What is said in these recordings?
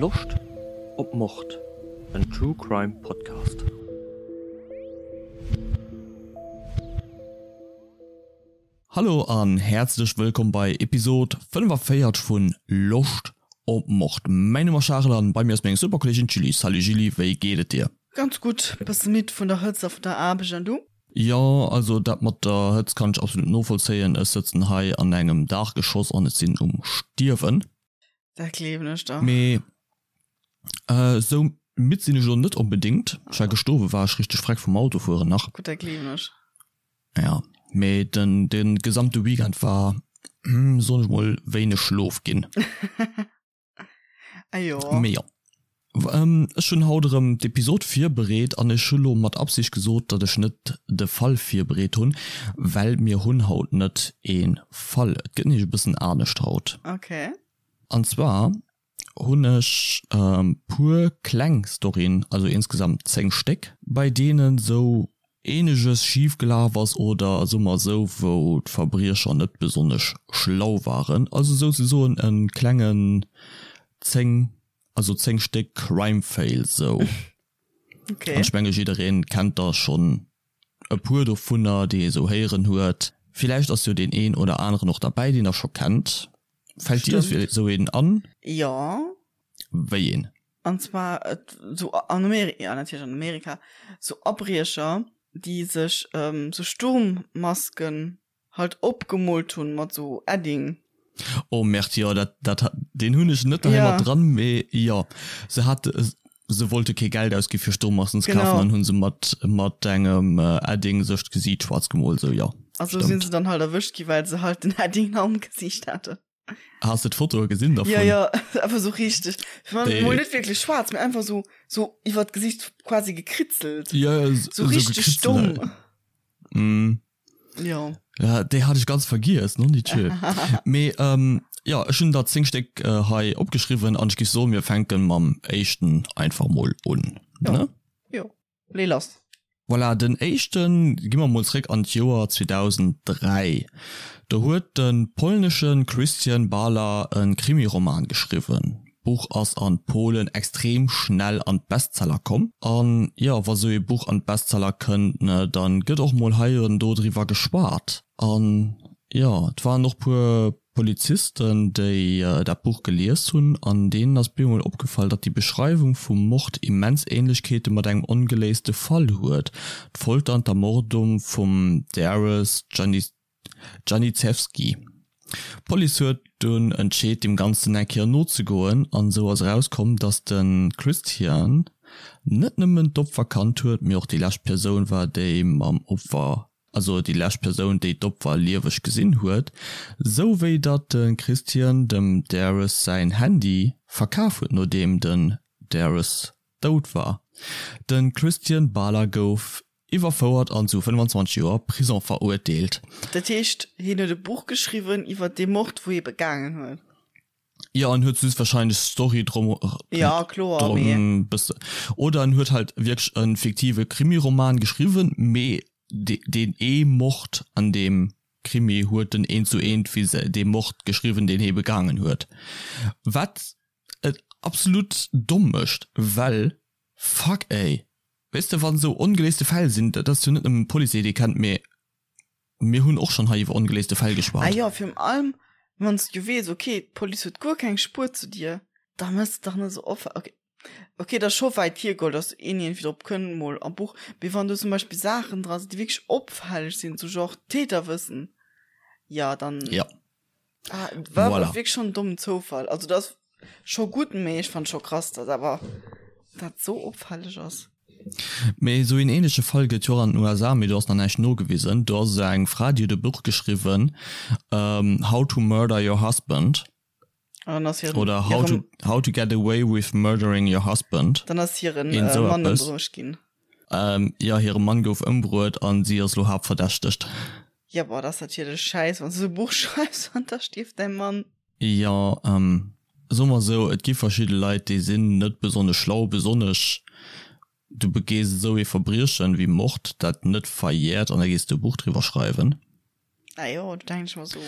Loscht op Mord? En True Crime Podcast. Hallo an häerzlech wëllkomm bei Episod 45 vun Loscht op Mord. Mäin Numm ass Charel an bei mir ass meng super Kolleegin d'Julie. Salut Julie, wéi geet et dir? Ganz gutt, bësse midd vun der Hëtzt a vun der Aarbecht an du? Jo, also dat mat der Hëtzt kann ech absolut novollzéien. Ech sëtzen hei an engem Daachgeschoss an ech sinn um Stierwen. Dat gleewen ech der. Mee esou midd sinn ech elo net onbedéngt. Ech war gëscht Owend war ech richteg freck vum Autofueren nach. Gutt, dat gleewen ech. Ja, mee den de gesamte Weekend war, soen ech mol, wéineg Schlof ginn. Ah jo. Mee jo. Ech hunn haut erëm d'Episod virbereet an ech hu lo mat Absicht gesot, datt ech net de Fall virbereet hunn, well mir hunn haut net ee Fall. Et gëtt nämlech e bëssen anescht haut. Okay. An zwar hunn ech puer kleng Storyen, also insgesamt 10 Stéck, bei deenen sou eeneges schif gelaf ass oder soe mer esou, wou d'Verbriecher net besonnesch schlau waren, also souzesoen e klengen 10, also 10 Stéck Crime Fail sou. Okay. An ech menge jiddereen kennt der schonn e puer dovunner, déi ee sou héieren huet. Villäicht ass jo deen een oder aneren och derbäi, deen der scho kennt. Fällt dir sou een an? Jo. Wéi een? An zwar et sou an Amerika, ja natierlech an Amerika, sou Abriecher, déi sech sou Sturmmasken halt opgemoolt hunn mat sou Edding. Oh Merde, jo dat dat deen hunn ech net hei mat dran, mee jo se hat se wollte kee Geld ausgi fir Sturmmasken ze kafen an hunn se mat mat engem Edding sech d'Gesiit schwaarz gemoolt, sou jo. A sou sinn se dann halt erwëscht gi well se halt den Edding am Gesiicht haten. Has de d'Fotoe gesinn dervun? Ja, ja, einfach so richtig. Ich mein, mol net wirklich schwarz, mee einfach so, so iwwer d'Gesicht quasi gekritzelt. Ja, ja, so, so richtig stumm. Mm. Ja. Ja, déi hat ech ganz vergiess, non die Tür. Mee, ähm, ja, ech hunn der 10 Stéck äh, hei opgeschriwwen an ech géif soen, mir fänken mam éischten einfach mol un. Ja. Ne? Jo. Lee lass. Voilà, den éischten, gi mer mol zréck an d'Joer 2003. Do huet de polnesche Krystian Bala e Krimiroman geschriwwen. D'Buch ass an Polen extrem schnell an d'Bestseller komm. An jo, wa sou ee Buch an d'Bestseller kënnt, ne, dann gëtt och mol hei an do driwwer geschwat. An jo, et waren och puer Polizisten, déi dat Buch gelies hunn, an deenen ass bemol opgefall, datt déi Beschreiwung vum Mord immens Ähnlechkeete mat engem ongeléiste Fall huet, d'Folter an d'Ermordung vum Darius Janiszewski. D'Police huet dunn entscheet, deem Ganzen eng Kéier nozegoen, an esou ass erauskomm, datt de Christian net nëmmen d'Opfer kannt huet, mee och déi lescht Persoun war, déi mam Opfer also déi lescht Persoun déi d'Opfer lieweg gesinn huet, sou wéi datt de Christian dem Darius säin Handy verkaf huet nodeem den Darius dout war. De Christian Bala gouf iwwerfouert an zu 25 Joer Prison verurteelt. Dat heescht hien huet e Buch geschriwwen iwwer dee Mord wou hie begaangen huet? Jo, en huet just wahrscheinlech d'Story drum, Ja, kloer, mee. drum bësse. Oder en huet halt wierklech e fiktive Krimiroman geschriwwen, mee deen ee Mord an deem Krimi huet en eent zu eent wéi se dee Mord geschriwwen, deen hie begaangen huet. Wat et absolut domm mécht, well fuck ey, weess de, wann esou ongeléiste Fäll sinn, dat ass jo net nëmmen d'Police, déi dee kennt, mee Mir hunn och schonn hei iwwer ongeléiste Fäll geschwat. Ah jo, virun allem wann s du weess, okay, d'Police huet guer keng Spuer zu dir, da mëss de dach net esou offen, okay, okay, dat ass scho wäit hiergeholl, dass een iergendwéi drop kënnt mol am Buch, mee wann do zum Beispill Saachen dra sinn, déi wierklech opfälleg sinn, sou genre Täterwëssen, jo, dann. Jo. Ah, war voilà. wirklich schon dummen Zoufall. Also das scho gut mee ich fand scho krass, dass awer dat so opfälleg ass. Mee esou een ähnleche Fall gëtt jo och an den USA, mee do ass nach näischt nogewisen. Do ass eng Fra, déi huet e Buch geschriwwen, How to Murder Your Husband. An dann ass hiren, Oder How to, How to Get Away with Murdering Your Husband. Dann ass hiren äh, Mann ëmbruecht ginn. Ähm, jo, hire Mann gouf ëmbruet an si ass lo haaptverdächtegt. Ja, boah, dat ass natierlech schäiss, wann s du esou e Buch schreifs an da stierft däi Mann. Jo, ähm, soe mer esou, et gi verschidde Leit, déi sinn net besonnesch schlau, besonnesch du begees esou ee Verbriechen wéi Mord, dat net verjährt an da gees du e Buch driwwer schreiwen. Ah jo, do denken ech mer esou.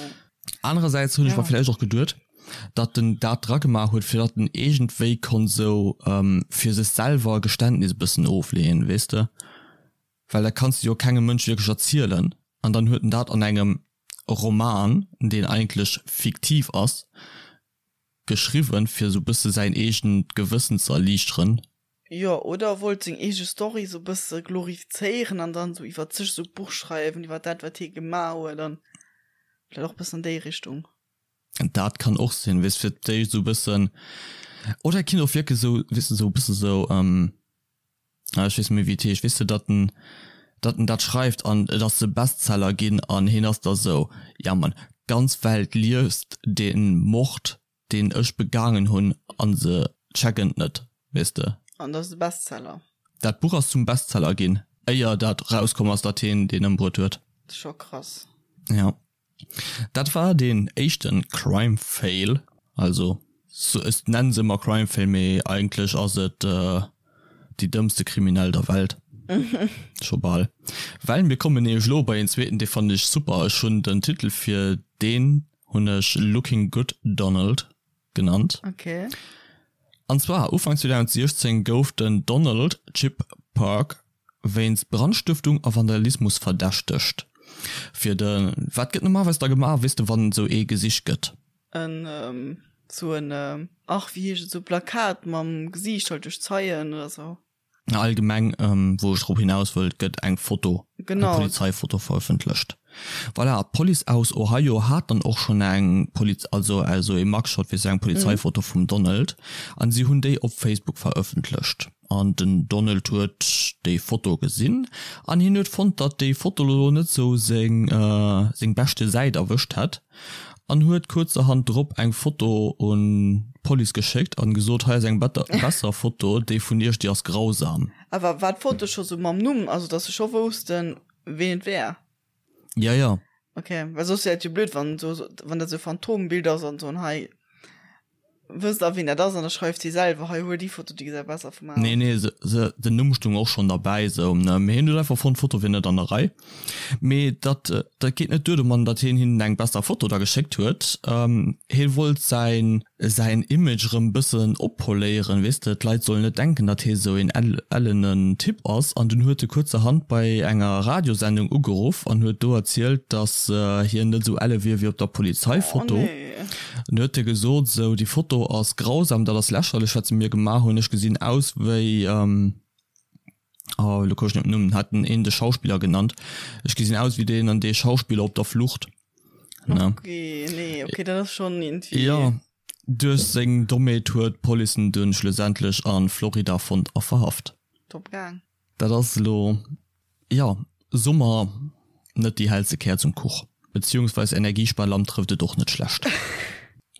Anerersäits hunn ech mer villäicht och geduet. Datt en dat dragemaach huet, fir datt en iergendwéi konnt esou fir sech selwer e Geständnis e bëssen ofleeën, weess de? Well dat kanns de jo kengem Mënsch wierklech erzielen. An dann huet en dat an engem Roman, deen eigentlech fiktiv ass, geschriwwen, fir esou bësse säin eegent Gewëssen ze erliichteren. Jo, oder wollt seng eege Story sou bësse glorifizéieren an dann sou iwwert sech sou Buch schreiwen, iwwert dat wat hie gemaach huet an vläit och bëssen an déi Richtung. Dat kann och sinn, weess fir d'éischt sou bëssen, oder et kinnt och wierklech sou, weess de, sou bësse sou, ah ech weess net méi wéi et heescht, weess de, datt en, datt en dat schreift an et ass e Bestseller ginn an hien ass da sou, ja Mann, d'ganz Welt liest dee Mord deen ech begaangen hunn an se checken et net, weess de. An dat ass e Bestseller. Dat Buch ass zum Bestseller ginn, éier dat rauskomm ass, datt hien deen ëmbruet huet. Dat ass scho krass. Ja. Dat war deen éischte Crime Fail, also ech nennen se ëmmer Crime Fail, mee eigentlech ass et déi dëmmste Kriminell der Welt. Scho bal. Well mir kommen nämlech elo bei een zweeten, dee fannen ech super. Ech hunn den Titel fir deen hunn ech Looking Good Donald genannt. Okay. An zwar Ufank 2016 gouf den Donald Chip Park wéinst Brandstëftung a Vandalismus verdächtegt. Fir de, wat gëtt normalerweis da gemaach, weess de, wann esou ee gesicht gëtt? En sou en, ach wéi heescht et, sou Plakat mam Gesiicht halt duerch Zeien oder sou. Allgemeng, wou ech drop hinaus wëll, et gëtt eng Foto, eng Polizeifoto verëffentlecht. Voilà, d'Police aus Ohio hat dann och schonn eng Poliz-, also also ee Mugshot, wéi se eng Polizeifoto vum Donald, an si hunn déi op Facebook verëffentlecht. An den Donald huet déi Foto gesinn an hien huet fonnt, datt déi Foto lo net sou seng seng beschte Säit erwëscht hätt. An huet kuerzerhand drop eng Foto un d'Police geschéckt an gesot, hei ass eng besser Foto, déi vun iech, déi ass grausam. Awer war d'Foto scho sou mam Numm, also dass se scho woussten ween et wär? Ja, ja. Ok, well soss wär et jo blöd wann sou, wann dat sou Phantombild ass an soen hei Wësst der ween dat ass? An da schreift si selwer, hei huel déi Foto, déi gesäit besser vu mer aus. Nee, nee, se, se, den Numm stung och schonn derbäi, sou, ne, mee hien huet einfach fonnt, d'Foto wier net an der Rei. Mee dat, dat geet net duer domatten, datt hien hinnen eng besser Foto da geschéckt huet. Hie wollt säin, säin Image erëm bëssen oppoléieren, weess de, d'Leit sollen net denken, datt hie sou een ellenen Typ ass. An dunn huet e kuerzerhand bei enger Radiosendung ugeruff an huet do erzielt, datt hien net sou elle wier wéi op der Polizeifoto. Oh nee. An huet e gesot, esou, déi Foto ass grausam, dat ass lächerlech, wat se mir gemaach hunn, ech gesinn aus wéi, oh, elo komm ech net op den Numm, hat en een de Schauspiller genannt, ech gesinn aus wéi deen an dee Schauspiller op der Flucht. Ne? Okay, nee, okay, dat ass schonn iergendwéi. Jo, duerch seng Dommheet huet d'Police en dunn schlussendlech a Florida fonnt a verhaft. Top gaang. Dat ass elo, jo, Summer, net déi hellste Käerz um Kuch. Beziehungsweis Energiesparlamp trëfft et och net schlecht.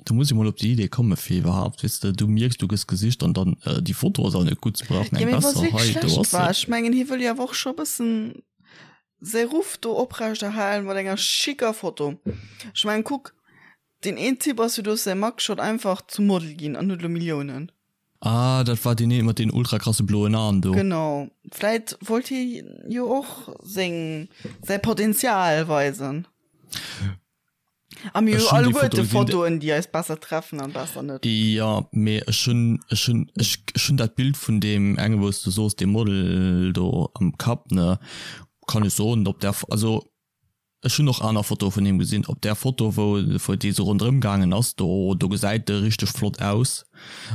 Do muss ee mol op déi Idee komme fir iwwerhaapt, weess de, du mierks du gëss gesicht an dann, déi Foto ass awer net gutt, se brauchen Ja, eng mee wa se besser, wierklech hei do schlecht ass se. war, ech mengen hie wëll jo awer och scho e bëssen säi Ruff do oprecht erhalen mat enger schicker Foto. Ech mengen kuck, deen een Typ ass jo duerch säi Mugshot einfach zum Model ginn an huet elo Milliounen. Ah, dat war deen een mat den ultra krasse bloen Aen do. Genau, vläit wollt hie jo och seng, säi Potenzial weisen. A mir hu Ech hunn déi Foto alleguerte gesinn, Fotoen, déi eis besser treffen an besser net. Jo, mee ech hunn, ech hunn, ech, ech hunn dat Bild vun deem enge wou s du soos, deem Model do am Kapp, ne, kann ech soen, op där, also Ech hunn och aner Fotoe vun him gesinn. Op där Foto wou wou dee sou ronderëm gaangen ass, do do gesäit e richteg flott aus.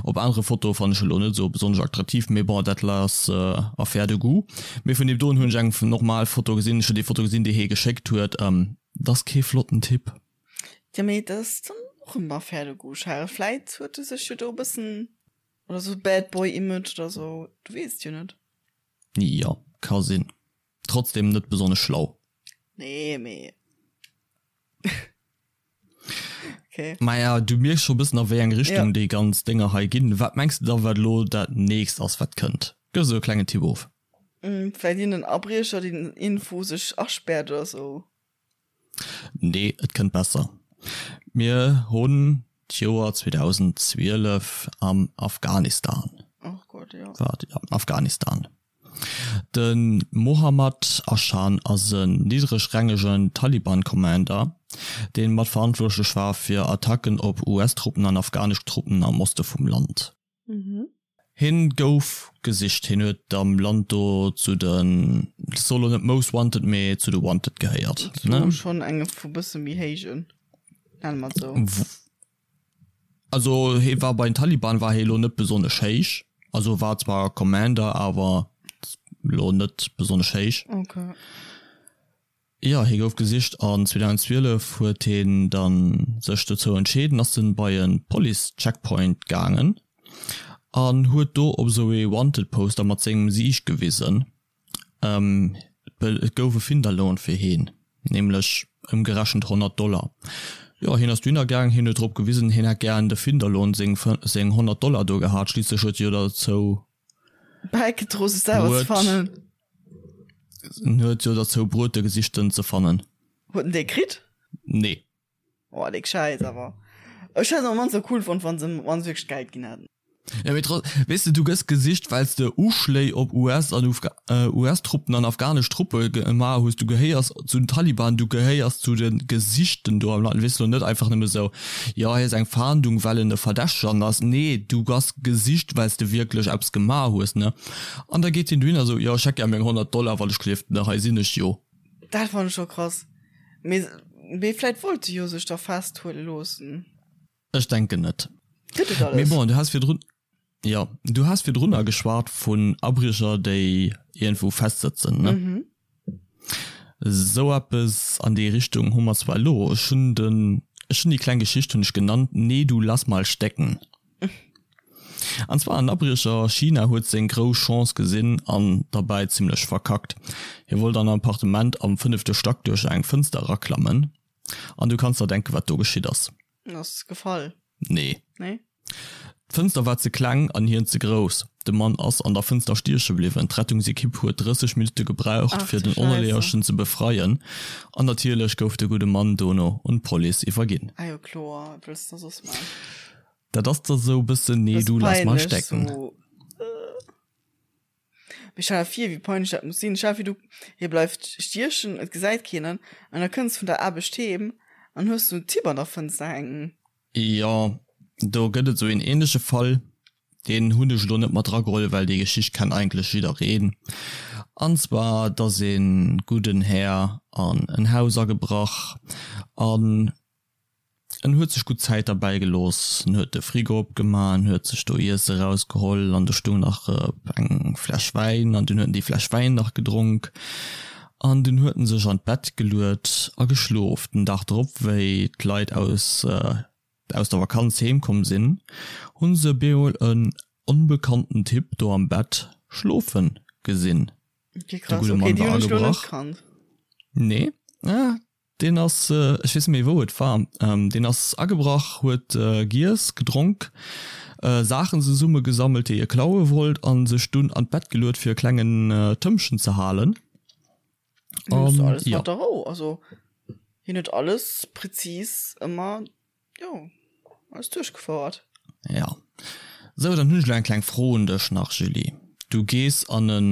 Op anere Fotoe fannen ech e lo net sou besonnesch attraktiv, mee bon dat ass affaire de goût. Mee vun deem doen hunn ech eng normal Foto gesinn. Ech hunn déi Foto gesinn déi hie geschéckt huet. Dat ass kee flotten Typ. Jo mee dat ass dann och eng affaire de goût, Charel. Vläit huet e sech jo do e bëssen, oder sou Bad Boy Image oder sou, du weess et jo net. Jo, ka sinn. Trotzdem net besonnesch schlau. Nee, mee. Okay. Maja, du mierks scho bëssen a wéi eng Richtung ja. déi ganz Dénger hei ginn. Wat mengs de da wat elo dat nächst ass wat kënnt? Gëff esou e klengen Tipp of. Mm, vläit iergenden Abriecher deen iergendwou sech aspäert oder sou. Nee, et kënnt besser. Mir hunn d'Joer 2012 am Afghanistan. Och Gott, jo. Wat? Ja, Afghanistan. De Mohammad Ashan ass en niddregrängegen Taliban-Commander. deen mat verantwortlech war fir Attacken op US-Truppen an afghanesch Truppen am Oste vum Land. Hien gouf gesicht, hien huet am Land do zu den, ech soe lo net Most Wanted, mee zu de Wanted gehéiert. Zu schonn enge vu bësse méi héijen, nenne mer et sou. Also hie war bei den Taliban war hie lo net besonnesch héich, also war zwar Commander, awer lo net besonnesch héich. Okay. Jo, hie gouf gesicht an 2012 huet hien dann sech dozou entscheeden, ass en bei en Police Checkpoint gaangen an huet do op esou ee Wanted Poster mat sengem Gesiicht gewisen. Et gouf e Finderlohn fir hien, nämlech ëmgerechent 100 Dollar. Jo, hien ass dohinner gaangen, hien huet drop gewisen, hien hätt gären de Finderlohn, seng seng 100 Dollar do gehat. Schliisslech huet e jo derzou Bäigedro sech selwer ze fannen. En huet jo derzou bruet de Gesichten ze fannen. Huet en dee kritt? Nee. Oh déck Schäiss awer. Ech hätt et am mannste cool fonnt wann se wann se wierklech d'Geld ginn hätten. Ja mee trotz, weess de du gëss gesicht wells de Uschléi op US an US Truppen an afghanesch Truppe gemaach hues, du gehéiers zu den Taliban, du gehéiers zu de Gesichten do am Land, weess de lo net einfach nëmme sou jo hei ass eng Fahndung well en e Verdächtegen ass, nee du bass gesicht wells de wierklech eppes gemaach hues ne. An da geet hien dohinner sou jo ech hätt gär meng 100 Dollar wann ech gelift ne hei sinn ech jo. Dat fannen ech scho krass. Mee mee vläit wollt e jo sech da festhuele loossen. Ech denken net. Gëtt et Mee alles? bon, du has virdrun, jo, du has virdrunner geschwat vun Abriecher, déi iergendwou festsëtzen, ne? Mhm. Esou eppes an déi Richtung hu mer zwar elo. Ech hunn den, ech hunn déi kleng Geschicht hunn ech genannt, Nee, du lass mal stecken. An zwar en Abriecher a China huet seng grouss Chance gesinn an derbäi zimmlech verkackt. Hie wollt an en Appartement am fënnefte Stack duerch eng Fënster eraklammen an du kanns der denken, wat do geschitt ass. En ass gefall. Nee. Nee? D'Fënster war ze kleng an hien ze grouss. De Mann ass an der Fënster stieche bliwwen. D'Rettungsekipp huet 30 Minutte gebraucht, Ach fir du den Scheiße. Onerleeërchen ze befreien. An natierlech gouf de gudde Mann dono un d'Police iwwerginn. Ah jo kloer, wat wëlls de da soss man? Dat ass da sou bëssen nee Bësse du lass mal peinlech stecken. sou. Mee stell der vir wéi peinlech dat muss sinn. Stell der vir du hie bleift stiechen, et gesäit keen en an da kënns vun der Aarbecht heem an hues sou en Typ an der Fënster hänken. Jo, do gëtt et sou een ähnleche Fall, deen hunn ech elo net mat drageholl, well déi Geschicht kennt eigentlech jiddereen. An zwar, dass ee gudden Här an en Haus agebrach an En huet sech gutt Zäit derbäi gelooss. En huet de Frigo opgemaach, en huet sech do Iesse rausgeholl an do stung nach eng Fläsch Wäin an dunn huet en déi Fläsch Wäin nach gedronk an dunn huet en sech an d'Bett geluet a geschlof. Den Dag drop, wéi d'Leit aus aus der Vakanz heem komm sinn, hunn se bemol en onbekannten Typ do am Bett schlofe gesinn. Okay, De krass. gudde Okay, Mann déi war hunn ech lo net agebrach. kannt. Nee, ah, Deen ass, ech weess net méi wou et war, deen ass agebrach, huet giess, gedronk, Saachen zesumme gesammelt déi e klaue wollt an sech dunn an d'Bett geluet fir e klengen Tëmpchen ze halen. An alles mat der Rou, also hien huet alles präzis ëmmer, jo, alles duerchgefouert. Jo. Sou, dann hunn ech elo eng kleng Fro un dech nach, Julie. Du gees an en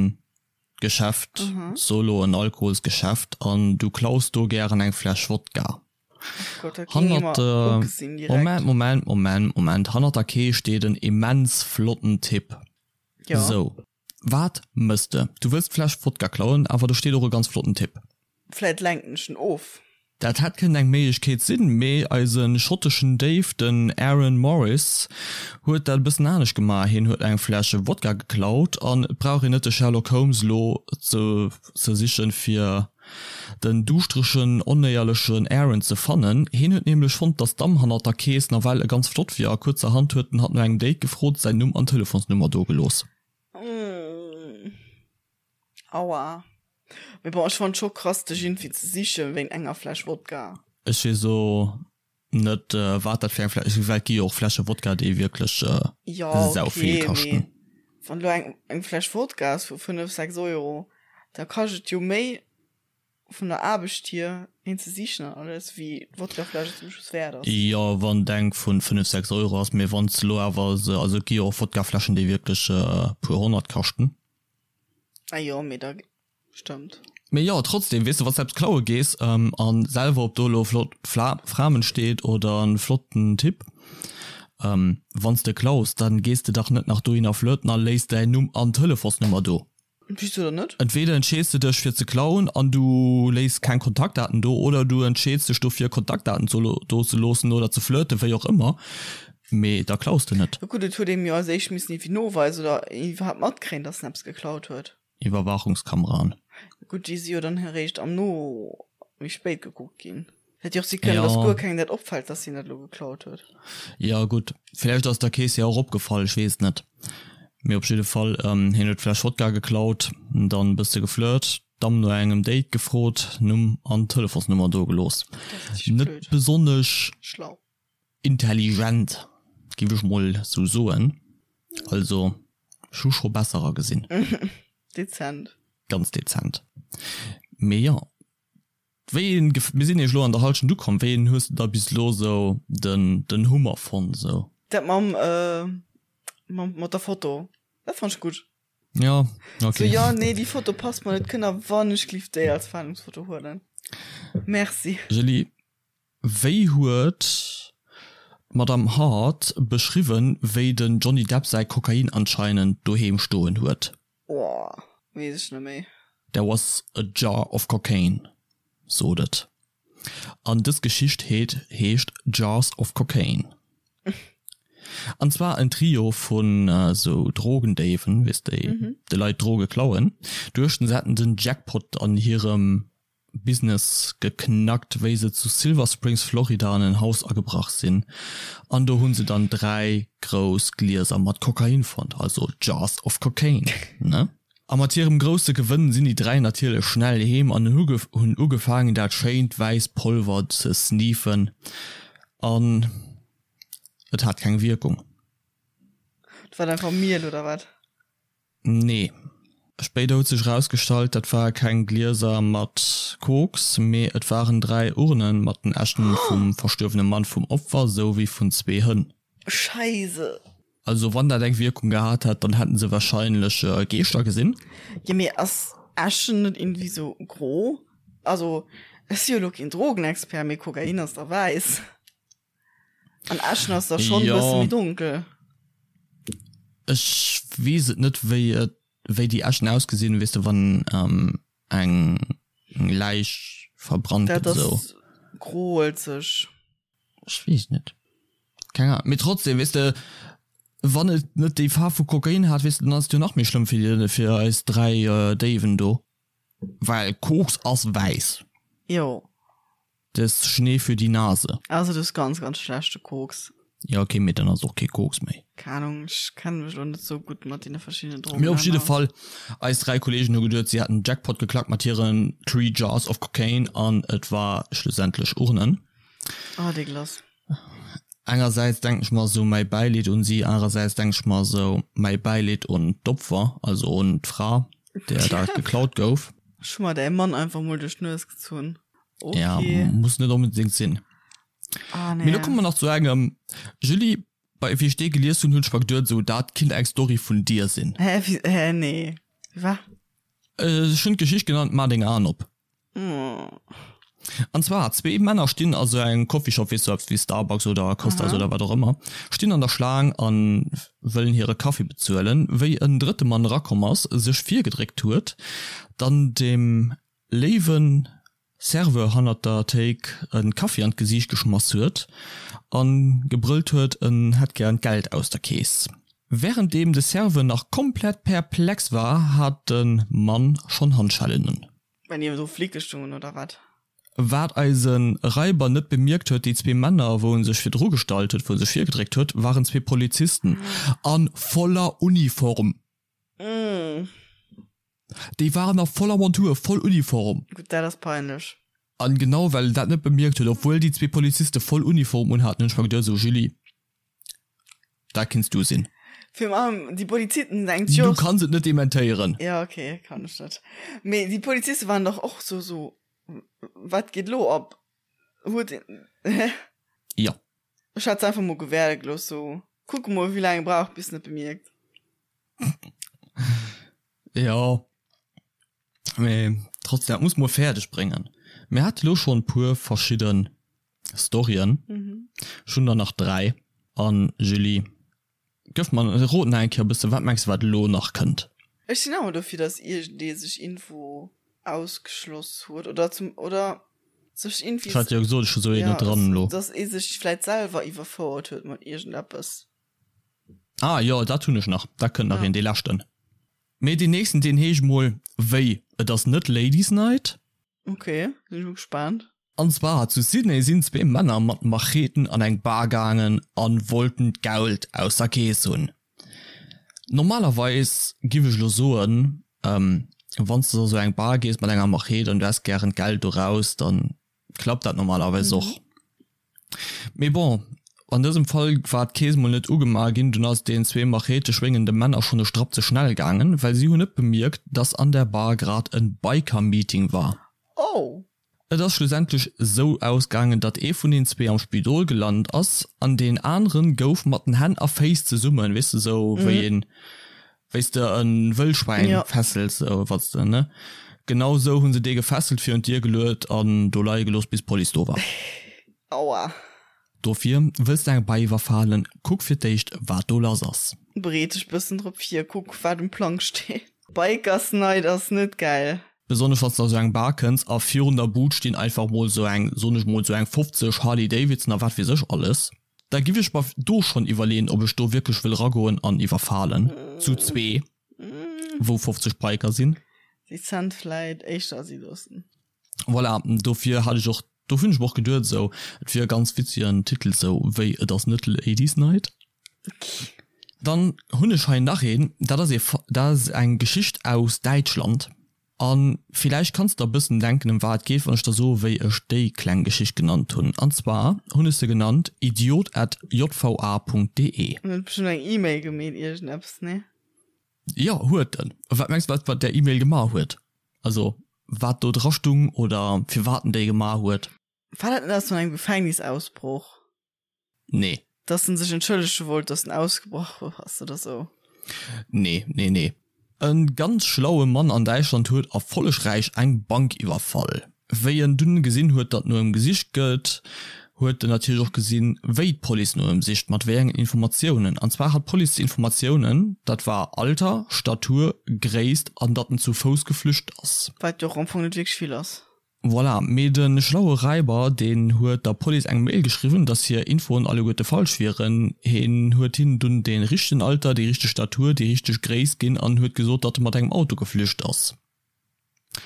Geschäft, so lo en Alkoholsgeschäft an du klaus do gären eng Fläsch Wodka. Hannert der, Moment, Moment, Moment, Moment, hannert der Kees steet en immens flotten Typ. Sou, wat mëss de? Du wëlls d'Fläsch Wodka klauen, awer do steet och e ganz flotten Typ. Vläit lenken ech en of. Dat hätt kënnen eng Méiglechkeet sinn, mee eise schotteschen Déif, den Aaron Morris, huet dat e bëssen anescht gemaach. Hien huet eng Fläsch Wodka geklaut an et brauch een net de Sherlock Holmes elo ze ze sichen, fir den duuschteregen, onéierlechen Aaron ze fannen. Hien huet nämlech fonnt, dass d'Damm hannert der Kees nawell e ganz flott wier a kuerzerhand huet en hatt no engem Date gefrot, säin Numm an Telefonsnummer dogelooss. Aua. Mee bon, ech fannen scho krass dech iergendwéi ze sichen wéint enger Fläsch Wodka. Ech weess o net wat dat fir eng Fläsch, well et gi jo och Fläsche Wodka déi wierklech Jo sau vill okay, mee kaschten. wann elo eng eng Fläsch Wodka ass vu 5, 6 Euro, da kascht et jo méi vun der Aarbecht hier een ze sichen an alles, wéi d'Wodkafläsch et zum Schluss wäert ass. Jo wann et eng vun 5, 6 Euro ass, mee wann s de elo awer se, also et gi jo och Wodkafläschen déi wierklech e puer honnert kaschten. Ah jo, mee da stëmmt. Mee jo, trotzdem, weess de, wann s de eppes klaue gees an selwer, ob do elo flott Framen steet oder en flotten Typ, wann s de klaus, dann gees de dach net nach dohinner flirten a léiss däin Numm an Telefonsnummer do. Wieso dann net? Entweder entscheeds de dech fir ze klauen an du léiss keng Kontaktdaten do oder du entscheeds dech dofir Kontaktdaten do ze loossen oder ze flirten, wéi och ëmmer, mee da klaus de net. Gutt, et huet ee jo als éischt missen iergendwéi noweisen oder iwwerhaapt matkréien, dass en eppes geklaut huet. Iwwerwaachungskameraen. Gutt, déi si jo dann eréischt am No méi spéit gekuckt ginn. Hätt jo och si kënnen, dass guer kengem dat opfält, dass hien dat elo geklaut huet. Jo gutt, vläicht ass der Keess jo och opgefall, ech weess et net. Mee op jidde Fall, hien huet d'Fläsch Wodka geklaut, dann e bësse geflirt, d'Damm no engem Date gefrot, Numm an Telefonsnummer do gelooss. Net besonnesch schlau. Intelligent, giff ech mol sou soen. Also ech hu scho besserer gesinn. Dezent. Ganz dezent. Mee jo, wéi een, mir sinn eech elo an der Halschent ukomm, wéi een hues de da bis elo sou den den Hummer fonnt sou? Dat mam, mam mat der Foto, dat fand ech gutt. Jo, ok. Sou, jo, nee, déi Foto passt mer net, kënnt der wannechgelift déi als Fahndungsfoto huelen? Merci. Julie, Wéi huet d'Madame Hart beschriwwen, wéi den Johnny Depp säi Kokain anscheinend doheem stoen huet? Oh, weess ech net méi. There was a jar of cocaine, sot et. An dës Geschicht heet heescht Jars of Cocaine. An zwar en Trio vun esou Drogendéiwen, weess déi de Leit Droge klauen, duechten se hätten den Jackpot an hirem Business geknackt, wéi se zu Silver Springs, Florida an en Haus agebrach sinn an do hunn se dann 3 grouss Glieser mat Kokain fonnt, also Jars of Cocaine, ne? A mat hirem grousse Gewënn sinn déi 3 natierlech schnell heem an hunn ugefaangen dat schéint wäiss Polver ze sneefen an et hat keng Wierkung. Dat war einfach Miel oder wat? Nee. Spéider huet sech erausgestallt, dat ware keng Glieser mat Koks, mee et waren 3 Urnen mat den Äschen vum verstuerwene Mann vum Opfer souwéi vun zwee Hënn. Scheise. Also wann dat eng Wierkung gehat hätt, dann hätten se wahrscheinlech Geeschter gesinn. Jo mee ass Äschen net irgendwie sou gro? Also ech si jo lo keen Drogenexpert, mee Kokain ass da wäiss. An Äschen ass da schon jo. bësse méi donkel. Ech weess et net wéi et wéi déi Äschen ausgesinn, weess de wann ähm, eng Läich verbrannt gëtt esou. Dat ass groelzeg. Ech weess net. Keng Ahnung. Mee trotzdem, weess de, wann et net déi Faarf vu Kokain hat, weess de, dann ass et jo nach méi schlëmm fir fir eis 3 Déiwen do. Well Koks ass wäiss. Jo. Des Schnee für die Nase. Also du hues ganz ganz schlechte Koks. Ja okay, mee dann ass och kee Koks méi. Keng Ahnung, ech kenne mech lo net sou gutt mat deene verschiddenen Drogen Mee op jidde Fall, eis 3 Kollegen hu geduet si hätten Jackpot geklackt mat hiren Three Jars of Cocaine an et war schlussendlech Urnen. Oh dégueulasse. Engersäits denken ech mer sou mäi Bäileed un si, anerersäits denken ech mer sou mäi Bäileed un d'Opfer, also un d'Fra där dat geklaut gouf. Ech hu mer däi Mann einfach mol duerch d'Nues gezunn. Okay. Ja, muss net onbedingt sinn. Ah, nee. Mee lo komme mer nach zu engem, Julie, bei wéi ech dee gelies hunn, hunn ech mer geduet, sou dat kinnt eng Story vun dir sinn. Hä, wéi, hä, nee. Wa? Ech hunn d'Geschicht genannt Maach deng Aen op. An zwar, zwee Männer stinn a sou engem Coffeeshop, weess du, eppes wéi Starbucks oder Costas oder wat och ëmmer, stinn an der Schlaang a wëllen hire Kaffi bezuelen, wéi en drëtte Mann erakomm ass, sech virgedréckt huet, dann dem léiwe Serveur hannert der Théik e Kaffi an d'Gesiicht geschmass huet a gebrëllt huet, en hätt gären d'Geld aus der Keess. Wärenddeem de Serveur nach komplett perplex war, hat de Mann schonn Handschellen un. Waren déi do Flicke stoungen oder wat? Wat eise Raiber net bemierkt huet, déi zwee Männer, wou en sech virdru gestallt huet, wou en sech virgedréckt huet, waren zwee Polizisten a voller Uniform. Déi waren a voller Montur, voll Uniform. Gutt, dat ass peinlech. An genau well en dat net bemierkt huet, obwuel déi zwee Poliziste voll Uniform unhaten, hunn ech mer geduet, esou Julie, dat kinns du sinn. Virun allem déi Polizisten denkt jo. Du kanns et net dementéieren. Jo, okay, kann ech net. Mee déi Poliziste waren dach och sou, sou, wat geet elo ab? Huet een, hä? Jo. Ech hätt se einfach mol gewäerde gelooss, sou, kucke mol wéi laang e brauch bis en et bemierkt. Jo, mee. Trotzdem, dat muss mol fäerdeg bréngen. Mir hate lo schonn puer verschidde Storyen. Ech hunn der nach 3. An Julie, gëff mer, rot nach eng Kéier e bëssen, wat mengs de wat elo nach kënnt? Ech sinn awer dofir, dass iergendee sech Info ausgeschloss huet oder zum, oder sech irgendwie. Ech hat jo gesot, ech hu sou een net dran elo. Dass ee sech vläit selwer iwwerfouert huet mat iergendeppes. Ah jo, dat hunn ech nach. Dat kënnt nach een, dee leschten. Mee deen nächsten, deen heescht mol wéi, et ass net Ladies Night. Ok, sinn ech mol gespaant. An zwar zu Sydney sinn zwee Männer mat Macheten an eng Bar gaangen an wollten d'Geld aus der Kees hunn. Normalerweis giff ech lo soen, wanns de a sou eng Bar gees mat enger Machete an du häss gären d'Geld do raus, dann klappt dat normalerweis och. Mee bon, an dësem Fall war d'Kees mol net ugemaach ginn, dunn ass deen zwee Machete schwéngende Männer schonn e Strapp ze schnell gaangen, well si hunn net bemierkt, dass an der Bar grad en Biker-Meeting war. Oh! Et ass schlussendlech sou ausgaangen, datt ee vun den zwee am Spidol gelant ass an deen aneren gouf mat den Hänn a Féiss zesummen, weess de, sou wéi een, wéi s de e Wëllschwäin fesselt, sou wat s de, ne? Genau sou hu se dee gefesselt, virun d'Dier geluet an do leie gelooss, bis d'Police do war. Aua. Dofir, wëlls de eng Bei iwwerfalen, kuck fir d'éischt, wat do lass ass. Bereet dech bëssen drop vir, kuck wat um Plang steet. Bikers Night ass net gäil. Besonnesch wanns de a sou eng Bar kënns a virun der Bud stinn einfach mol sou eng, soen ech mol, sou eng 50 Harley Davidson a wat weess ech alles. Da giff ech mer do schonn iwwerleeën ob ech do wierklech wëll ragoen an iwwerfalen, zu zwee, wou 50 Biker sinn. Dezent vläit éischter si loossen. Voilà, dofir hat ech och, do hunn ech mer och geduet esou, et wier e ganz witzegen Titel esou wéi Et ass net Ladies Night. Dann hunn ech hei nach een, dat ass ee, dat ass eng Geschicht aus Däitschland a villäicht kanns de der e bëssen denken ëm wat et geet, wann ech der soe wéi ech déi kleng Geschicht genannt hunn. An zwar hunn ech se genannt idiot at jva Punkt de. En huet bestëmmt eng E-Mail gemeet, iergendeppes, nee? Jo, huet en. Wat mengs de wat wat där E-Mail gemaach huet? Also wat do dra stung oder firwat en déi gemaach huet? War dat net aus vun engem Gefängnisausbroch? Nee. Dass en sech entschëllege wollt, dass en ausgebrach ass oder sou? Nee, nee, nee. E ganz schlaue Mann an Däitschland huet erfollegräich eng Bank iwwerfall. Wéi en dunn gesinn huet, datt no em gesicht gëtt, huet en natierlech och gesinn, wéi d'Police no em sicht, mat wéi engen Informatiounen. An zwar hat d'Police d'Informatiounen, dat war Alter, Statur, Gréisst an datt en zu Fouss geflücht ass. Wat jo och am Fong net wierklech vill ass. Voilà, mee de schlaue Räiber, deen huet der Police eng Mail geschriwwen, datt hir Infoen alleguerte falsch wieren. Hien huet hinnen dunn dee richtegen Alter, déi richteg Statur, déi richteg Gréisst ginn an huet gesot, datt e mat engem Auto geflücht ass.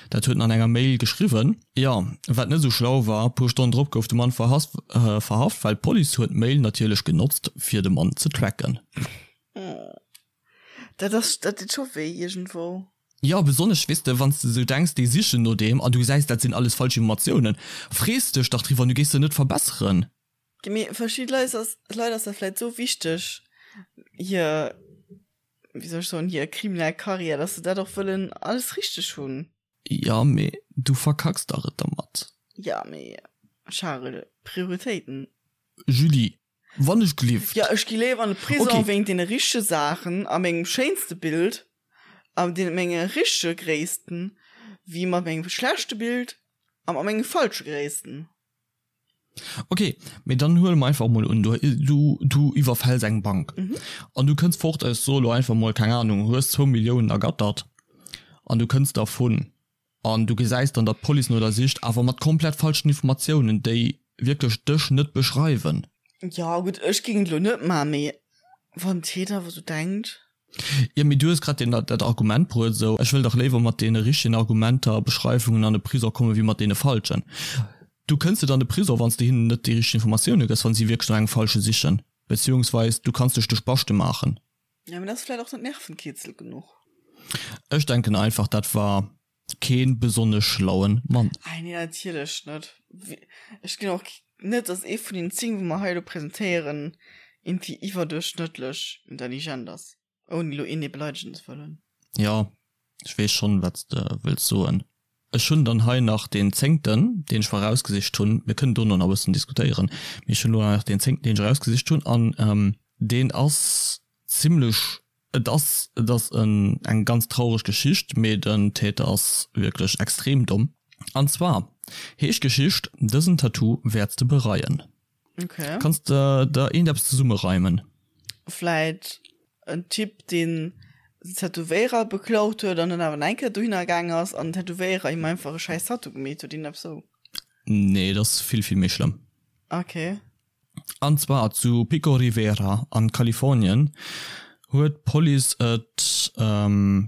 Dat huet en an enger Mail geschriwwen. Jo, wat net esou schlau war, puer Stonnen drop gouf de Mann verhaft, well d'Police huet d'Mail natierlech genotzt, fir de Mann ze tracken. Dat ass, dat deet scho wéi iergendwou. Jo, besonnesch, weess de, wann s de esou denks, déi sichen no deem an du gesäis, dat sinn alles falsch Informatiounen, frees dech dach driwwer an du géifs se net verbesseren. Mee verschidde Leit ass, Leit ass dat vläit esou wichteg, hir, wéi soll ech soen, hir kriminell Karriär, dass se dat och wëllen alles richteg hunn. Jo, mee du verkacks dach et dermat. Jo, mee Charel, Prioritéiten. Julie, Wann ech glift. Jo, ech gi léiwer an de Prison okay. wéint deene richtege Saachen a mengem schéinste Bild a deene menge richtege Gréissten, wéi mat mengem schlechte Bild a mat menge falsche Gréissten. Ok, mee dann huele mer einfach mol un, du, du, du iwwerfäls eng Bank mhm. an du kënns fort, ech soe lo einfach mol, keng Ahnung, hues zwou Milliounen ergattert an du kënns dervun. An du gesäis dann, datt d'Police no der sicht, awer mat komplett falschen Informatiounen, déi wierklech dech net beschreiwen. Jo, gutt, ech géing et elo net maachen, mee wann d'Täter awer esou denkt. Jo, mee du hues grad deen, dat Argument bruet, esou, ech wëll dach léiwer mat deene richtegen Argumenter a Beschreiwungen an de Prisong kommen, wéi mat deene falschen. Du kënns net an de Prisong, wann s de hinnen net déi richteg Informatioune gëss, wa si wierklech no engem falsche sichen, beziehungsweis du kanns dech de Spaschte maachen. Ja, mee dat ass vläit och net Nervenkitzel genuch. Ech denken einfach, dat war keen besonnesch schlauen Mann. Ei nee, natierlech net. Ech ginn och net, dass ee vun den 10, wou mer hei elo presentéieren, iergendwéi iwwerduerchschnëttlech intelligent ass. Ouni elo een ee beleidegen ze wëllen. Jo, ech weess schonn, wat s de wëlls soen. Ech hunn dann hei nach deen zéngten, deen ech mer erausgesicht hunn. Mir kënnen dono nach e bëssen diskutéieren, mee ech hunn elo nach deen zéngten, deen ech erausgesicht hunn, an deen ass zimlech. Et ass, et ass en, eng ganz traureg Geschicht, mee den Täter ass wierklech extrem domm. An zwar heescht d'Geschicht Dësen Tattoo wäerts de bereien. Okay. Kanns de der iergendeppes zesummereimen? Vläit en Typ, deen den Tätowéierer beklaut huet an dann awer nach eng Kéier dohinner gaang ass an den Tätowéierer him einfach e schäiss Tattoo gemeet huet, iergendeppes sou. Nee, et ass vill, vill méi schlëmm. Okay. An zwar zu Pico Rivera an Kalifornien huet d'Police et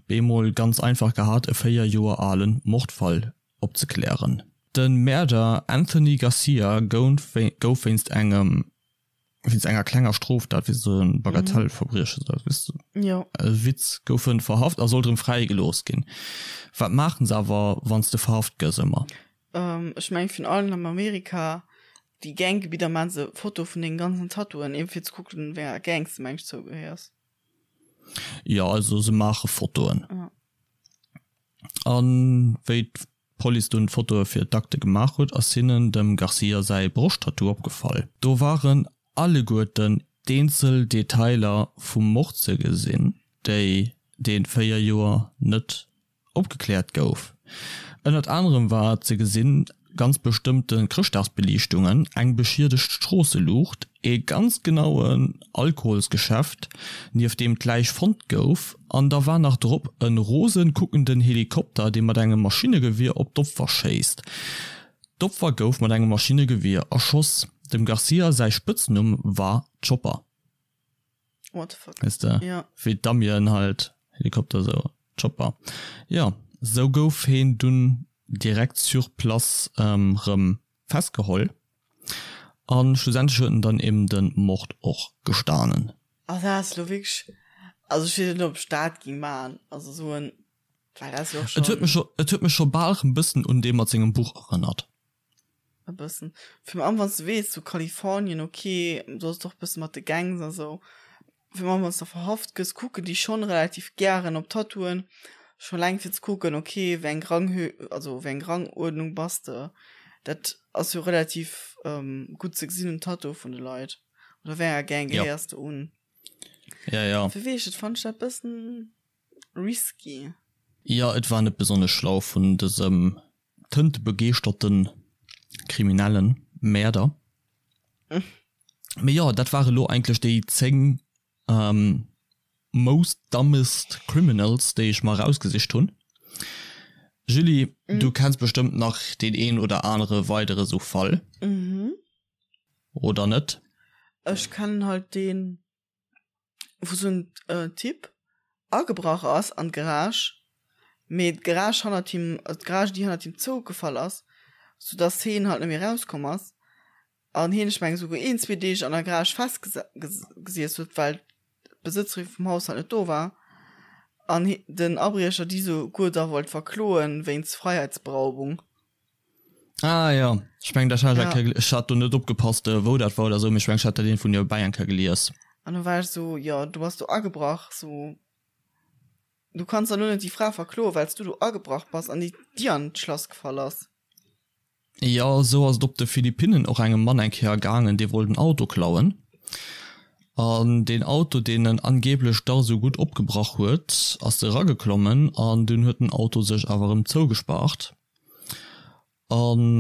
bemol ganz einfach gehat e 4 Joer alen Mordfall opzeklären. De Mäerder Anthony Garcia gouf wéinst engem wéinst enger klenger Stroftat, wéi sou e Bagatellverbrieche, weess de, e Witz, gouf en verhaft a sollt erëm fräigelooss ginn. Wat maachen se awer wann s de verhaft gëss ëmmer? Ech mengen virun allem am Amerika Déi Ganggebidder maan se Foto vun dengen ganzen Tattooen eben fir ze kucken wéi enger Gangs de mengs zougehéiers. Jo also se maache Fotoen. An wéi d'Police dunn d'Fotoe fir d'Akte gemaach huet ass hinnen dem Garcia säi Broschttattoo opgefall. Do waren alleguerten d'eenzel Detailer vum Mord ze gesinn, déi dee 4 Joer net Opgekläert gouf. Ënnert anerem war ze gesinn, ganz bestëmmte Chrëschtdagsbeliichtungen, eng beschiedegt Stroosseluucht, ee ganz genauen Alkoholsgeschäft, nieft deem d'Läich fonnt gouf, an da war nach drop e rosen kuckenden Helikopter, dee mat engem Maschinnegewier op d'Opfer schéisst. D'Opfer gouf mat engem Maschinnegewier erschoss. Dem Garcia säi Spëtznumm war Chopper. What the fuck? Weess de? Ja. Wéi d'Amien halt, Helikopter sou, Chopper. Jo, sou gouf heen dunn direkt sur place rëm festgeholl an schlussendlech huet en dann eben de Mord och gestanen. Ah dat ass lo wierklech, also ech weess net ob ech dat ging maan, also sou en, well dat ass jo och Et huet mech scho, et huet mech scho bal rëm bëssen un dee mat sengem Buch erënnert. E bëssen. Virun allem wann s de weess, sou Kalifornien, ok, do ass et och e bësse mat de Gangs a sou. Virun allem wann s de verhaft gëss, kucken déi schonn relativ gären op Tattooen, scho eleng fir ze kucken, ok, wéi eng Ranghö-, also wéi eng Ranguerdnung bass de. Dat ass jo relativ gutt ze gesinn um Tattoo vun de Leit. Oder wéi enger Gang gehéiers de un. Ja, ja. Fir weess ech, fannen ech dat bëssen risky. Jo, et war net besonnesch schlau vun dësem tëntebegeeschterten kriminellen Mäerder. Mee jo, dat ware lo eigentlech déi 10 most dumbest criminals, déi ech mer erausgesicht hunn. Julie, du kenns bestëmmt nach deen een oder anere weidere sou Fall, oder net? Ech kennen halt deen. wou sou en Typ agebrach ass an d'Garage, mee d'Garage hannert him, d'Garage déi hannert him zougefall ass, sou dass heen halt net méi rauskomm ass an heen, ech mengen souguer een, zwee Deeg an der Garage festgesiess huet, well d'Besëtzerin vum Haus halt net do war an den Abriecher déi souguer da wollt verkloen wéinst Freiheitsberaubung. Ah jo, ech mengen dat hat ech eng Kéier, ech hat do net opgepasst wou dat war oder sou, mee ech mengen ech hat dat iergendwou niewebäi eng Kéier gelies. An du war ech sou, jo du bass do agebrach, sou du kanns dann lo net déi Fra verkloen, well s du do agebrach bass an déi Dier an d'Schlass gefall ass. Jo, sou ass et op de Philippinnen och engem Mann eng Kéier gaangen, dee wollt en Auto klauen an deen Auto, deen en angeblech dach sou gutt opgebrach huet, ass erageklommen an dunn huet den Auto sech awer erëm zougespaart. An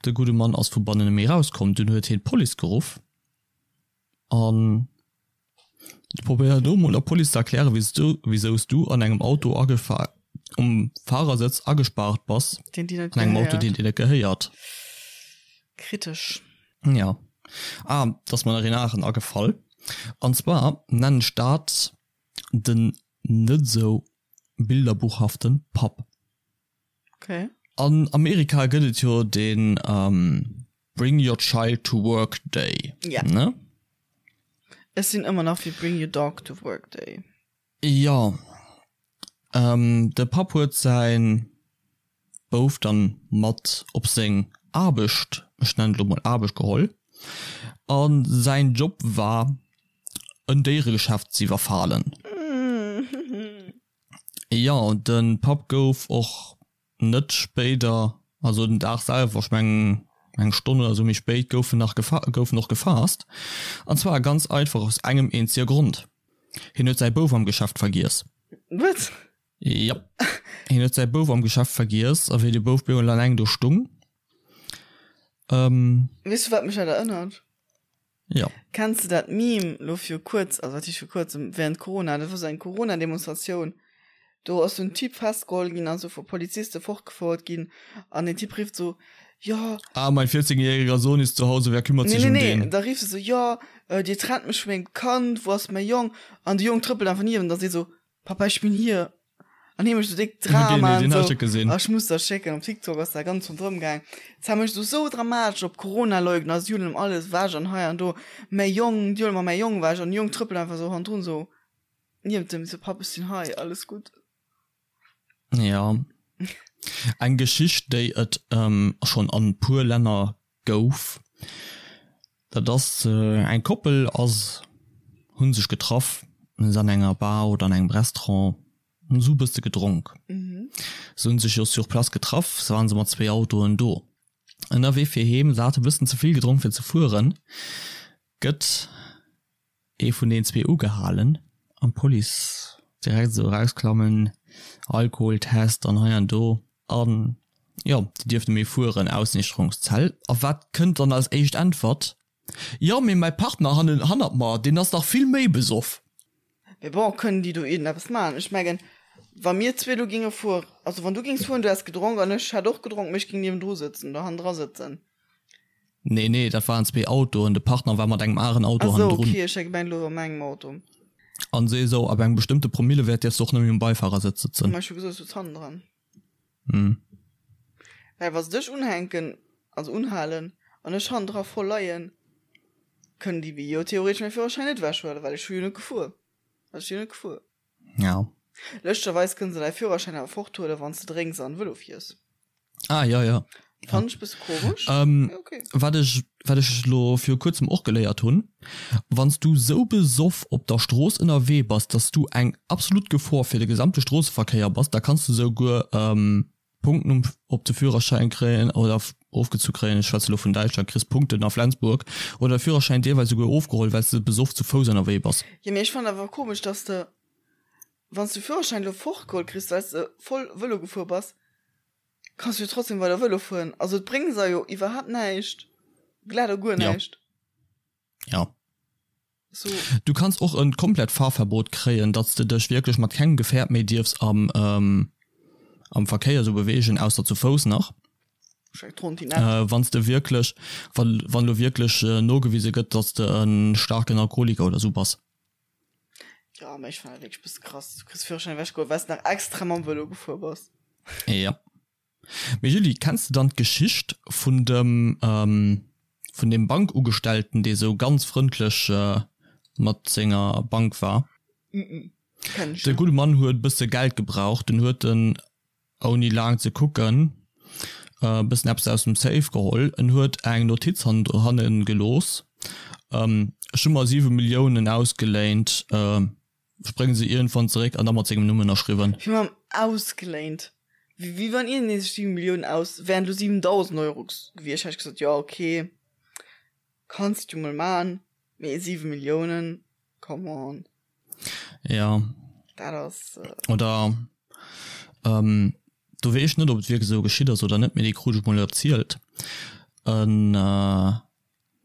de gudde Mann ass vu bannen net méi erauskomm. Dunn huet hien d'Police geruff an probéiert elo mol der Police ze erklären, wéi s du an engem Auto um Fahrersëtz agespaart bass, an engem Auto, deen dir net gehéiert. Kritesch. Jo. Ah, et ass mer nach een aneren agefall. An zwar nennen ech dat den net esou bilderbuchhaften Papp. Okay. An Amerika gëtt et jo den Bring your child to work day. Ja. Ne? Ech sinn ëmmer nach fir Bring your dog to work day. Jo. De Papp huet säin Bouf dann mat op seng Aarbecht, ech nennen et elo mol Aarbecht, geholl. A säin Job war en Déieregeschäft z'iwwerfalen. Jo, de Papp gouf och net spéider, also den Dag selwer, ech mengen eng Stonn oder sou méi spéit, gouf en nach gouf en och gefaasst. An zwar ganz einfach aus engem eenzege Grond. Hien huet säi Bouf am Geschäft vergiess. What? Jop. Hien huet säi Bouf am Geschäft vergiess a wéi de Bouf bemol alleng do stung, ähm. Weess du wat mech dat erënnert? Jo. Kenns de dat Meme lo viru kuerz, also wat heescht viru kuerzem, während Corona, dat war sou eng Corona-Demonstratioun, do ass sou en Typ festgeholl ginn an sou vu Poliziste fortgefouert ginn an deen Typ rifft sou, jo. Ah, mein 14 jähriger Sohn ist zu Hause, wer kümmert sich um den? Nee, nee, nee, da rifft e sou, jo, dir trennt mech vu mengem Kand, wou ass mäi Jong? An de Jong trëppelt einfach niewent an seet sou, Papa, ich bin hier. An hie mécht sou déck Drama an sou. Ah, ech muss der schécken, op TikTok ass dat ganz ronderëm gaang. Zwar mécht sou sou dramatesch op Corona-Leugner, si huelen em alles ewech an hei an do. Mäi Jong, déi huele mer mäi Jong ewech an de Jong trëppelt einfach sou hannendrun sou niewent em, sou, Papp, ech sinn hei, alles gutt. Ja. Eng Geschicht, déi et schonn an puer Länner gouf, dat ass eng Koppel ass hunn sech getraff se an enger Bar oder an engem Restaurant hunn se e bësse gedronk. Se hunn sech jo sur place getraff, se waren se mat zwéi Autoen do. Ënnerwee fir heem, se hate bëssen ze vill gedronk fir ze fueren, gëtt ee vun den zwee ugehalen an d'Police direkt esou erausklammen, Alkoholtest an hei an do an jo, déi dierfte méi fueren, Ausniichterungszell. A wat kënnt dann als éischt Äntwert? Jo, mee mäi Partner hannen hannert mer, deen ass nach vill méi besoff. Mee bon, kënnen déi do iergendeppes maachen? Ech mengen, wa mir zwee do géinge fueren, also wann du géings fueren, du häss gedronk an ech hätt och gedronk, mee ech géing niewendru sëtzen oder hannendra sëtzen. Nee, nee, dat waren zwee Autoen. De Partner war mat engem aren Auto Ach sou, hannendrun. okay, ech hat gemengt elo an mengem Auto. An si esou, ab engem bestëmmte Promillewäert dierfs de och net méi um Beifarersëtz sëtzen. Ma ech hu gesot, ech sëtz hannendran. Hm. Well wa se dech unhänken, also unhalen, an ech hannendra voll leien, kënnen déi mir jo theoretesch mäi Führerschäin net ewechhuelen, well ech hu jo net gefuer. Also ech si jo net gefuer. Ja. Lëschtgerweis kënnen se däi Führerschäin awer forthuelen, wann s de drénks an Vëlo fiers. Ah, ja, ja. Fand ech bësse komesch. Ähm, ja, okay. Wat ech, wat ech lo viru kuerzem och geléiert hunn, wann s du sou besoff op der Strooss ënnerwee bass, dass du eng absolut Gefor fir de gesamte Stroosseverkéier bass, da kanns du souguer ähm, Punkten um, op de Führerschäin kréien oder ofgezu kréien, ech schwätze lo vun Däitschland, kriss Punkten a Flensburg oder de Führerschäin deelweis souguer ofgeholl, well s de besoff zu Fouss ënnerwee bass. Jo, mee ech fannen awer komesch, dass de Wann s du Führerschäin elo fortgeholl kriss, well s de voll Vëlo gefuer bass, kanns du jo trotzdem weider Vëlo fueren. Also et bréngt der jo iwwerhaapt näischt, glat a guer näischt. Ja. So. Du kanns och en komplett Fahrverbot kréien, datt s de dech wierklech mat kengem Gefährt méi dierfs am am Verkéier esou beweegen, ausser zu Fouss nach. Äh, wann s de wierklech, wann wann elo wierklech nogewise gëtt, datt s de e staarken Alkoholiker oder esou bass. Ja, mä ech fannen dat wierklech bësse krass. Du kriss Führerschäin ewechgeholl, well s de nach extra mam Vëlo gefuer bass. Ja. Mee Julie, kenns de dann d'Geschicht vun dem, ähm, vun deem Bankugestellten, dee sou ganz frëndlech mat senger Bank war? Mm, kenn ech De net. gudde Mann huet e bësse Geld gebraucht, dunn huet en ouni laang ze kucken, e bëssen eppes aus dem Safe geholl. En huet eng Notiz hanne gelooss, Ech hu mer 7 Milliounen ausgeléint, ech brénge se iergendwann zeréck, an da mat sengem Numm ënnerschriwwen. Wéi mam ausgeléint? Wéi wann iergendee sech 7 Milliounen aus, wären elo 7.000 Euro gewiescht, hätt ech gesot, jo ok, kanns du mol man, mee 7 Milliounen, come on. Ja. Dat ass. Oder ähm, do weess ech net, ob et wierklech esou geschitt ass oder net, mee déi krut ech mol erzielt. En äh,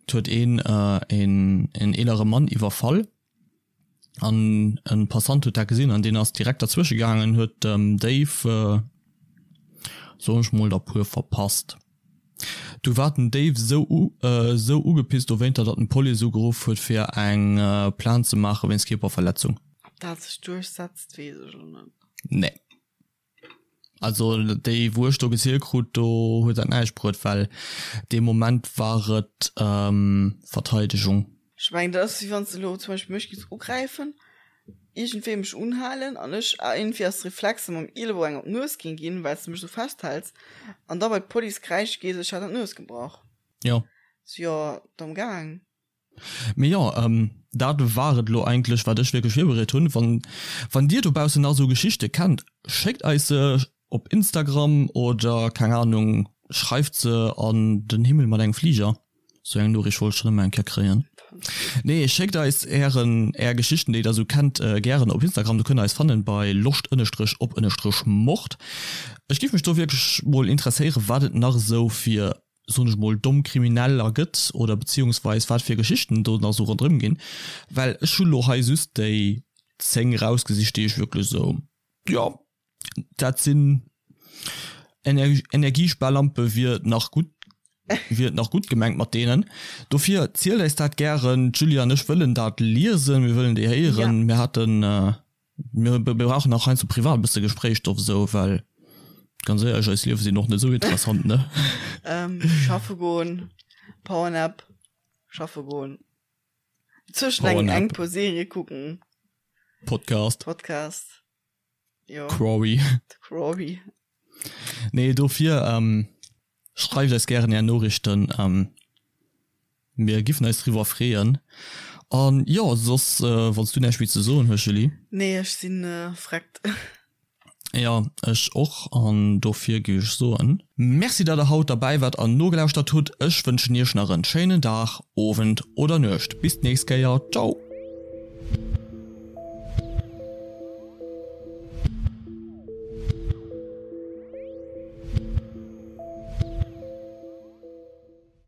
et huet een äh, een, een eelere Mann iwwerfall an en Passant huet dat gesinn an deen ass direkt derzwësche gaangen, huet dem Déif äh, soen ech mol, der puer verpasst. Du war den Déif sou sou ugepisst dowéinter, datt en d'Police ugeruff huet fir eng Plainte ze maache wéinst Kierperverletzung. Ob dat sech duerchsetzt, weess ech elo net. Nee. Also déi wou ech do gezielt krut, do huet dat näischt bruet, well dee Moment war et Verteidegung. Ech mengen dat ass wéi wann s de elo zum Beispill mech géifs ugräifen, iergendwéi mech unhalen an ech iergendwéi aus Reflexe mam Ielebou eng op d'Nues géing ginn, well s de mech esou festhäls an da bei d'Police kräische gees, ech hätt an d'Nues gebrach. Jo. So, jo, domm gaang. Mee jo, dat war et elo eigentlech wat ech wierklech virbereet hunn. Wann, wann dir dobaussen nach esou Geschichte kennt, schéckt eis se op Instagram oder keng Ahnung, schreift se an den Himmel mat engem Fliger. Sou eng Noriicht wollt ech schon ëmmer eng Kéier kréien. Nee, schéckt eis ären, är Geschichten, déi der esou kennt, gären op Instagram. Do kënnt der eis fannen bei loscht ënnestrech op ënnestrech mord. Ech giff mech do wierklech mol interesséieren, wat et nach esou fir, soen ech mol, domm Krimineller gëtt oder beziehungsweis wat fir Geschichten do nach esou ronderëm ginn. Well ech hu lo hei just déi 10 rausgesicht, déi ech wierklech esou, jo, Dat sinn Energiesparlampe wier nach gutt wier et nach gutt gemengt mat deenen. Dofir zielt eis dat gären. D'Julie an ech wëllen dat liesen, mir wëllen déi héieren. Mir haten mir brauchen nach heiansdo privat e bësse Gespréichstoff esou, well ganz éierlech, eis Liewe sinn och net esou interessant, ne? Schaffe goen, Powernap, schaffe goen, zwëschen eng eng puer Serie kucken, Podcast. Podcast. Jo. Quarry. Quarry. Nee, dofir ähm, schreift eis gären är Noriichten. Ähm, mir giffen eis driwwer freeën. An jo, soss, äh, wann s du näischt méi ze soen hues, Julie. Nee, ech sinn äh, vreckt. Ja, ech och. An dofir géif ech soen. Merci, datt der haut derbäi waart an nogelauschtert hutt. Ech wënschen iech nach en schéinen Dag, Owend oder Nuecht. Bis d'nächst Kéier. Ciao!